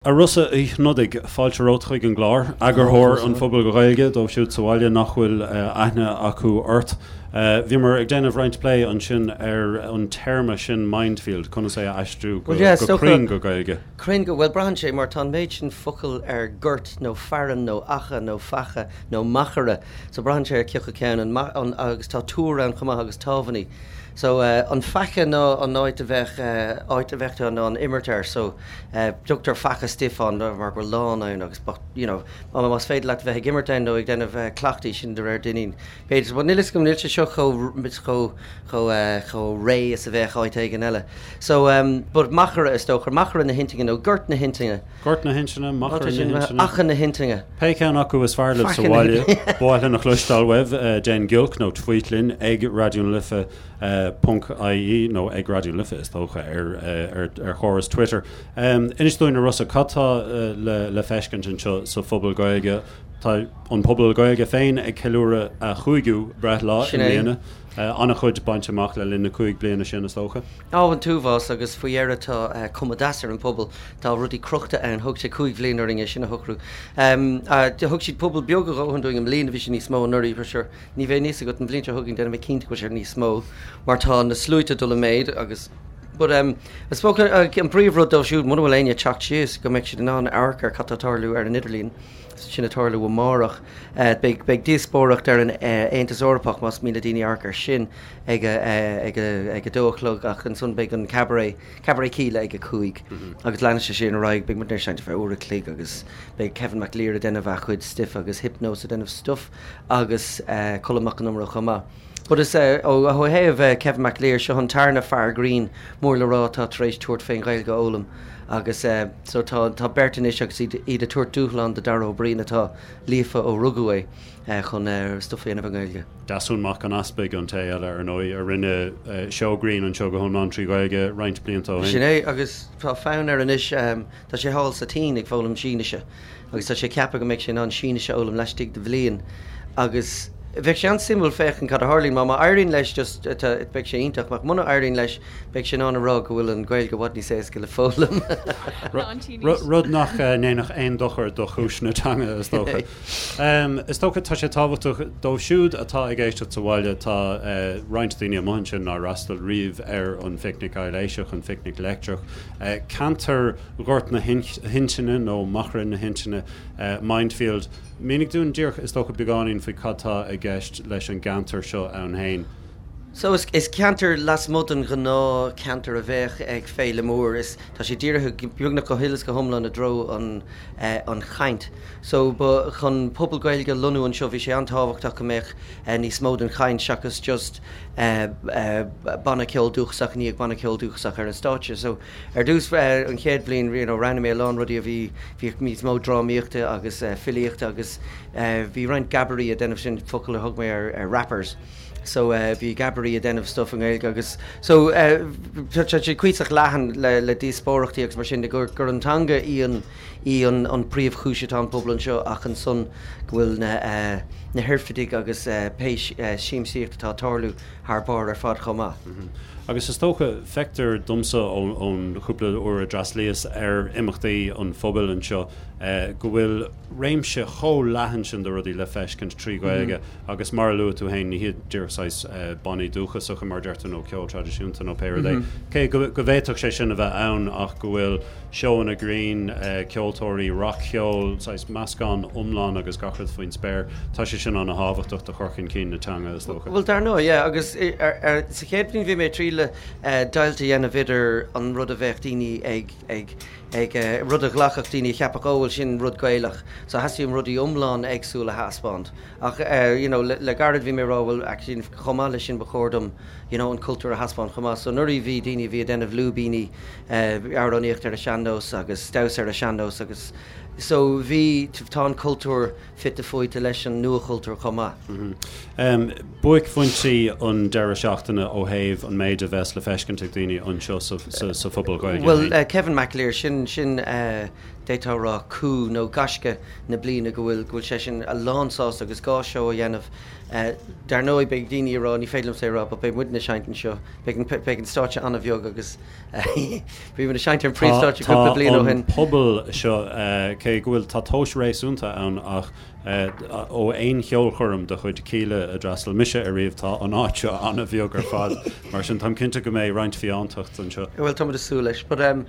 A Rossa Uí Shnodaigh, fáilte romhat chuig an gclár. Eagarthóir an Phubaill Ghaeilge, dóibh siúd sa bhaile nach bhfuil aithne acu ort. Bhíomar ag déanamh roinnt plé ansin ar an téarma sin 'mindfield', conas é a aistriú go cruinn go Gaeilge. Cruinn go, bhuel braitheann sé mar tá an méid sin focal ar gort nó fearann nó acha nó faiche nó machaire so braitheann sé ar cioca ceann an, agus tá túr ann chomh maith agus támhainní. So an faiche ná an áit a bheadh, áit a bheadh tú in ann imirt air so. Tugtar faiche stuif ann mar go bhfuil lán ann agus but you know más féidir leat bheith ag imirt ann nó ag déanamh cleachtaí sin de réir Duinnín. B'fhéidir but níl fhios agam níl sé seo chomh chomh chomh chomh réidh is a bheadh áit éigin eile. So but machaire is dócha, machaire na hintinne nó gort na hintinne. Gort na hintinne, machaire na hintinne. Acha na hintinne. Pé ceann acu is fearr libh sa bhaile, ba mhaith linn a chloisteáil uaibh, déan giolc nó tweet linn ag Raidió na Life. ponc ie nó ag Raidió na Life is dócha ar chóras Twitter. Inis dúinn a Rossa, cad tá le feiscint anseo sa Phuball Gaeilge? Tá an Puball Gaeilge féin ag ceiliúradh a chúigiú breithlá i mbliana. An-chuid bainte amach le linn na 5 bliana sin is dócha. Á, an t-uafás agus faoi dheireadh tá cuma deas ar an phuball. Tá rudaí crochta ann. Thóg sé 5 bhliain orainn é sin a shocrú. Thug siad puball beag a dhóthain dúinn i mbliana, bhí sé níos mó anuraidh for sure. Ní bheidh a fhios agat an bhliain seo chugainn déanfaidh mé cinnte go bhfuil sé níos mó mar tá na sluaite ag dul i méid agus but um I suppose an príomhrud dóibh siúd muna bhfuil éinne ag teacht síos go mbeidh siad in ann amharc ar cad tá ag tarlú ar an idirlíon sin ag tarlú amárach. Beidh beidh díospóireacht ar an Aontas Eorpach más mian le daoine amharc ar sin ag a ag a ag a dó a chlog ach ansan beidh an cabaret Cabaret Kíla ag a 5 agus leanfaidh sé sin ar aghaidh. Beidh muid ar seinnt ar feadh uair a chloig agus beidh Kevin McAleer ag déanamh a chuid stuif agus Hypnós ag déanamh stuif agus Colm Mac Con Iomaire chomh maith. But is ó thaobh Kevin McAleer, seo an tarna fear grinn mór le rá atá tar éis tabhairt fén Ghaeilge a fhoghlaim agus so tá tá beirt anois agus iad iad ag tabhairt dúshlán do Dara Ó Briain atá líofa ó rugadh é chun stuif a dhéanamh i nGaeilge. Deasún Mac an Easpaig an té eile ar ndóigh a rinne seó grinn anseo go hiomlán trí Ghaeilge roinnt blianta ó shin. Sin é agus tá fonn air anois, tá sé thall sa tSín ag foghlaim Sínise. agus tá sé ceaptha go mbeidh sé in ann Sínis a fhoghlaim laistigh de bhliain agus bheadh sé an-suimiúil féachaint cad a tharlaíonn. Má má éiríonn leis just beidh sé iontach, ach muna éiríonn leis beidh sé in ann a rá go bhfuil an Ghaeilge i bhfad níos éasca le foghlaim. Rud nach ndéanfadh aon dochar do chúis na teanga is dócha. Is dócha tá sé tábhachtach dóibh siúd atá ag éisteacht sa bhaile, tá roinnt daoine amuigh ansin nár fhreastail riamh ar an Phicnic Aibhléiseach, an Phicnic Leictreach, ceantar Ghort na hIntinne nó Machaire na hIntinne, Mindfield. Mínigh dúinn díreach, is dócha, beagáinín faoi cad tá i gceist leis an gceantar seo ann féin. So is ceantar lasmuigh den ghnáth cheantar a bheadh ag féile mór. Is tá sé dírithe beagnach go huile is go hiomlán i dtreo an an chaint. So ba chun pobal Gaeilge a lonnú anseo bhí sé an-tábhachtach go mbeadh níos mó den chaint seachas just banna ceoil dúchasach i ndiaidh banna ceoil dúchasach ar an stáitse. So Ar dtús, an chéad bhliain, you know, roghnaigh mé a lán rudaí a bhí, bhí níos mó drámaíochta agus filíochta agus bhí roinnt gabairí ag déanamh, sin focal a thug mé ar, ar rappers. So bhí gabairí ag déanamh stuff i nGaeilge agus so tá sé cuíosach leathan le, le díospóireachtaí agus mar sin de gur, gur an teanga í an, í an, an príomhchúis atá an pobal anseo ach ansan go bhfuil na, na hoirfidigh agus pé siamsaíocht atá ag tarlú thar barr ar fad chomh maith. Agus is dócha, feictear domsa ón chúpla uair a d'fhreastlaíos ar imeachtaí an phobail anseo, go bhfuil réimse chomh leathan sin de rudaí le feiscint trí Ghaeilge agus mar a luaigh tú féin, ní hiad díreach saghas bannaí dúchasacha mar a deir tú nó ceol traidisiúnta nó pé rud é, cé go bhféadfadh sé sin a bheith ann ach go bhfuil seóanna grinn, ceoltóirí rac-cheoil, saghas meascán iomlán agus gach rud faoin spéir. Tá sé sin ana-thábhachtach do chur chun cinn na teanga, is dócha. Bhuel, dar ndóigh, yeah, agus sa chéad bhliain bhí mé ag triail deighilt a dhéanamh idir an rud a bheadh daoine ag, ag, ag, rud a ghlacfadh daoine a cheapfadh, oh, bhuel, sin rud Gaelach. So theastaigh uaim rudaí iomlán éagsúil a thaispeáint. Ach, you know, le gairid bhí mé ag rá, bhuel, actually, chomh maith leis sin ba chóir dom, you know, an cultúr a thaispeáint chomh maith. So anuraidh bhí daoine a bhí ag déanamh lúibíní, amhránaíocht ar an sean-nós agus damhsa ar an sean-nós agus so bhí, tá an cultúr fite fuaite leis an nuachultúr chomh maith. Buaicphointí an deireadh seachtaine ó thaobh an méid a bheas le feiscint ag daoine anseo sa Phuball Gaeilge Bhuel, Kevin McAleer, sin. sin, sin d'fhéadfá a rá coup nó gaisce na bliana go bhfuil, go bhfuil seisean a lán sásta agus gá seó a dhéanamh. Dar ndóigh beidh daoine ag rá, ní féidir liomsa é a rá, but beidh muidne ag seinnt anseo, beidh an, beidh an stáitse an-bheag agus bhí muid ag seinnt ar an phríomhstáitse cúpla bliain ó Tá shin. an puball seo, cé go bhfuil, tá tomhas réasúnta ann ach Ó aon cheolchoirm de chuid Kíla a d'fhreastail mise ariamh, tá an áit seo an-bheag ar fad, mar sin táim cinnte go mbeidh roinnt fiántacht anseo. Bhuel, táimid ag súil leis. But um,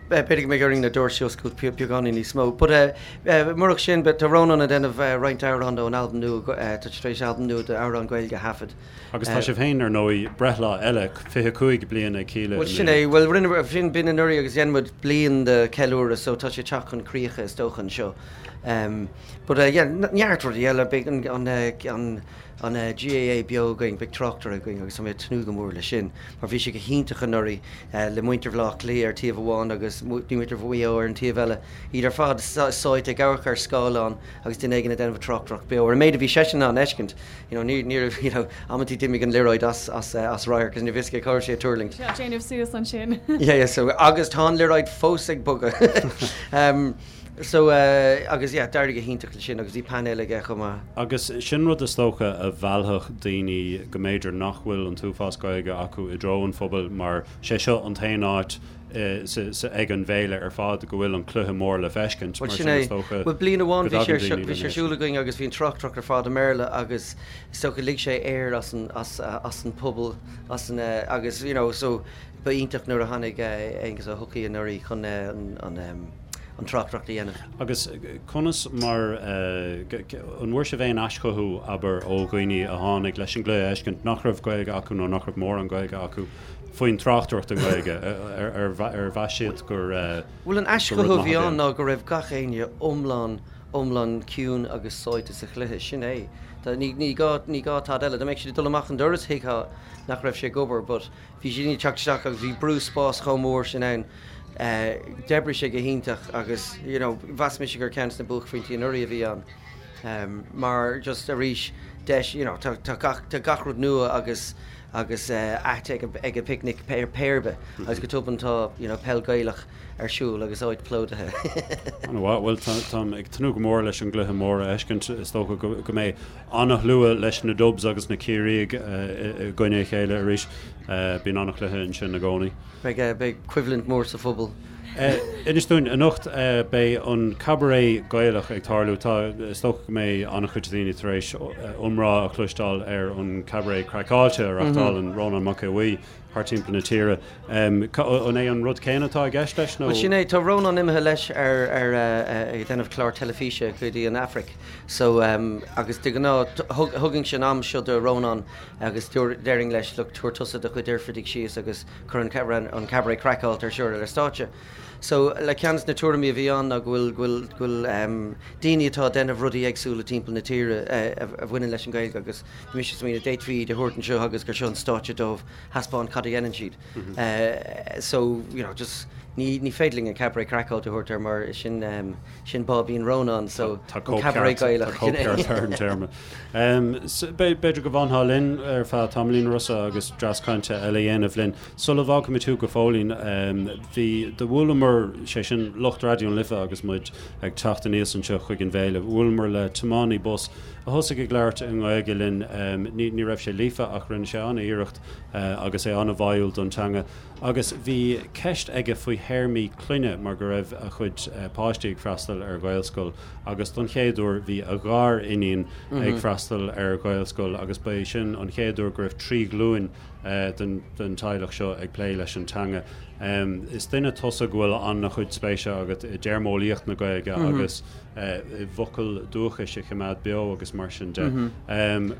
b'fhéidir go mbeidh orainn na doirse a oscailt beagáinín níos mó. But uh, murach sin, tá Rónán ag déanamh roinnt amhrán ón albam nua, tá sé tar éis albam nua d'amhráin Gaeilge a thaifead. Agus tá sibh féin, ar ndóigh, breithlá eile, 25 bliain ag Kíla i Bhuel, sin é. Bhuel, rinne, sin, b'in anuraidh agus dhein muid bliain de ceiliúradh, so tá sé ag teacht chun críche, is dócha, anseo. Um, but uh, yeah, neart rudaí eile, beidh an, an, an, an uh, GAA beo againn, beidh tráchtaire againn agus tá mé ag tnúth go mór leis sin, mar bhí sé go hiontach anuraidh uh, le muintir Bhaile Átha Cliath ar taobh amháin agus muintir Mhaigh Eo ar an taobh eile, iad ar fad sáite ag amharc ar scáileán agus duine éigin ag déanamh tráchtaireacht beo. Ar an méid a bhí seisean in ann a fheiscint, you know, ní, ní raibh, you know, amantaí d'imigh an liathróid as, as, uh, as radharc agus ní raibh fhios aige cá raibh sé ag tuirlingt. Sé ag déanamh suas ansin. Yeah, yeah, so, agus tá an liathróid fós ag bogadh. um, So, eh, agus yeah, d'éirigh go hiontach leis sin agus bhí painéal aige chomh maith. Agus sin rud is dócha a mheallfadh daoine go mb'fhéidir nach bhfuil an t-uafás Gaeilge acu i dtreo an phobail mar sé seo an t-aon áit eh, sa, sa, ag an bhféile ar fad go bhfuil an cluiche mór le feiscint. Bhuel Mar sin sin é. is dócha Bhuel bliain amháin go bhí sé ar dtagann seo, daoine bhí sé lena ar siúl againn agus bhí an tráchtaireacht ar fad i mBéarla agus is dócha lig sé aer as an, as, as an phobal, as an, eh, agus you know, so Ba iontach nuair a tháinig Aengus Ó hEochaidh anuraidh chun an tráchtaireacht a dhéanamh. Agus conas mar, an bhfuair sibh aon aischothú, abair, ó dhaoine a tháinig leis an gcluiche a fheiscint nach raibh Gaeilge acu nó nach raibh mórán Gaeilge acu faoin tráchtaireacht i nGaeilge? Ar mheas siad gur rud Bhuel, an maith aischothú a a bhí bhí ann ann? ná go raibh gach éinne iomlán, iomlán ciúin agus sáite sa chluiche. Sin é. Ní gá, ní gá tada eile. Dá mbeadh siad ag dul amach an doras thuigfeá nach raibh sé ag obair but, Bhí daoine ag teacht isteach agus bhí brú spáis chomh mór sin ann. D'oibrigh sé go hiontach agus you know mheas mise gur ceann de na buaicphointí anuraidh a bhí ann. Mar just arís deis you know tá tá gach tá gach rud nua agus agus ait ag ag an bpicnic pé pé ar bith agus go tobann tá you know peil Gaelach ar siúl agus áit plódaithe. An-mhaith. Bhuel tá táim ag tnúth go mór leis an gcluiche mór a fheiscint. Is dócha go go mbeidh An-shlua leis na Dubs agus na Ciarraígh i gcoinne a chéile arís. Bíonn an-chluiche ansin i gcónaí. Beidh beidh coimhlint mhór sa phuball. Inis dúinn, anocht beidh an Cabaret Gaelach ag tarlú. Tá, is dócha go mbeidh an-chuid daoine tar éis iomrá a chloisteáil ar an Cabaret Craiceáilte a reachtálann Rónán Mac Aodha Bhuí. thart timpeall na tíre. An é an rud céanna atá i gceist leis nó? Bhuel sin é, tá Rónán imithe leis ar ar ag déanamh clár teilifíse go dtí an Afraic so agus de ghnáth thugainnse an am seo do Rónán agus déarfainn leis look tabhair tusa do chuid oirfidigh síos agus cuir an an Cabaret Craiceáilte ar siúl ar an stáitse. So like ceann de na tuairimí a bhí ann ná go bhfuil go bhfuil go bhfuil daoine atá ag déanamh rudaí éagsúla timpeall na tíre a bhaineann leis an Ghaeilge agus Bhí mise ag smaoineamh, d'fhéadfaí iad a thabhairt anseo agus gur seo an stáitse dóibh thaispeáint cad a dhéanann siad. So, you know, just ní ní féidir linn an Cabaret Craiceáilte a thabhairt air mar sin sin Báibín Rónán, so Tá an Cabaret cóipcheart tá Gaelach. cóipcheart ar an téarma. B'fhéidir go bhfanfá linn ar feadh tamaillín, Rossa, agus dreas cainte eile a dhéanamh linn. Sula bhfágfaimid thú go fóillín, bhí, do bhuaileamar, sé sin lucht Raidió na Life agus muid ag teacht aníos anseo chuig an bhféile, bhuaileamar le tiománaí bus a thosaigh ag labhairt i nGaeilge linn. Ní, ní raibh sé líofa ach rinne sé an-iarracht agus é an-bháúil don teanga. Agus bhí ceist aige faoi théarmaí clainne mar go raibh a chuid páistí ag freastal ar Ghaelscoil agus don chéad uair bhí a ghar-iníon ag freastal ar Ghaelscoil agus ba é sin an chéad uair go raibh 3 ghlúin den teaghlach seo ag plé leis an teanga. Is duine tusa go bhfuil an-chuid spéise agat i dtéarmeolaíocht na Gaeilge agus i bhfocail dúchais a choimeád beo agus mar sin de.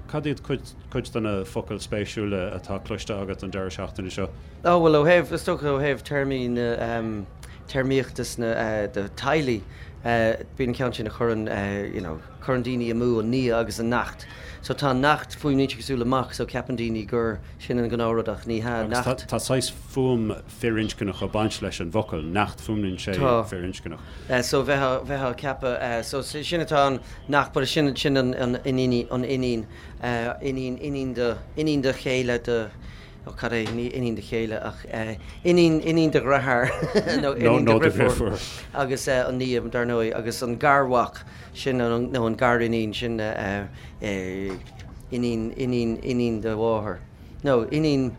Cad iad cuid de na focail spéisiúla atá cloiste agat an deireadh seachtaine seo? Ó bhuel ó thaobh, is dócha ó thaobh téarmaí na téarmaíochta sna do teaghlaigh, bíonn an ceann sin a chuireann you know, Cuireann daoine amú an nia agus an neacht. So tá neacht, fuaimníonn sé cosúil le mac, so ceapann daoine gur sin an gnáthrud ach ní hea, Agus neacht. tá saghas fuaim firinscneach ag baint leis an bhfocal, neacht, fuaimníonn sé Tá. firinscneach. So bheifeá, bheifeá ag ceapadh, so sin atá ann, neacht, but sin, sin an, an iníon, an iníon, iníon, iníon do, iníon do chéile do. Ó cad é, ní iníon do chéile ach iníon, iníon do dheartháir nó iníon do dhriofúr agus an nia dar ndóigh agus an garmhac sin nó an gariníon sin iníon, iníon, iníon do mháthar nó iníon,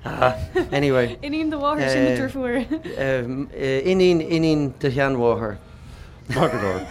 ah, anyway. Iníon do mháthar sin do dhriofúr. Iníon, iníon do sheanmháthar. Maith go leor.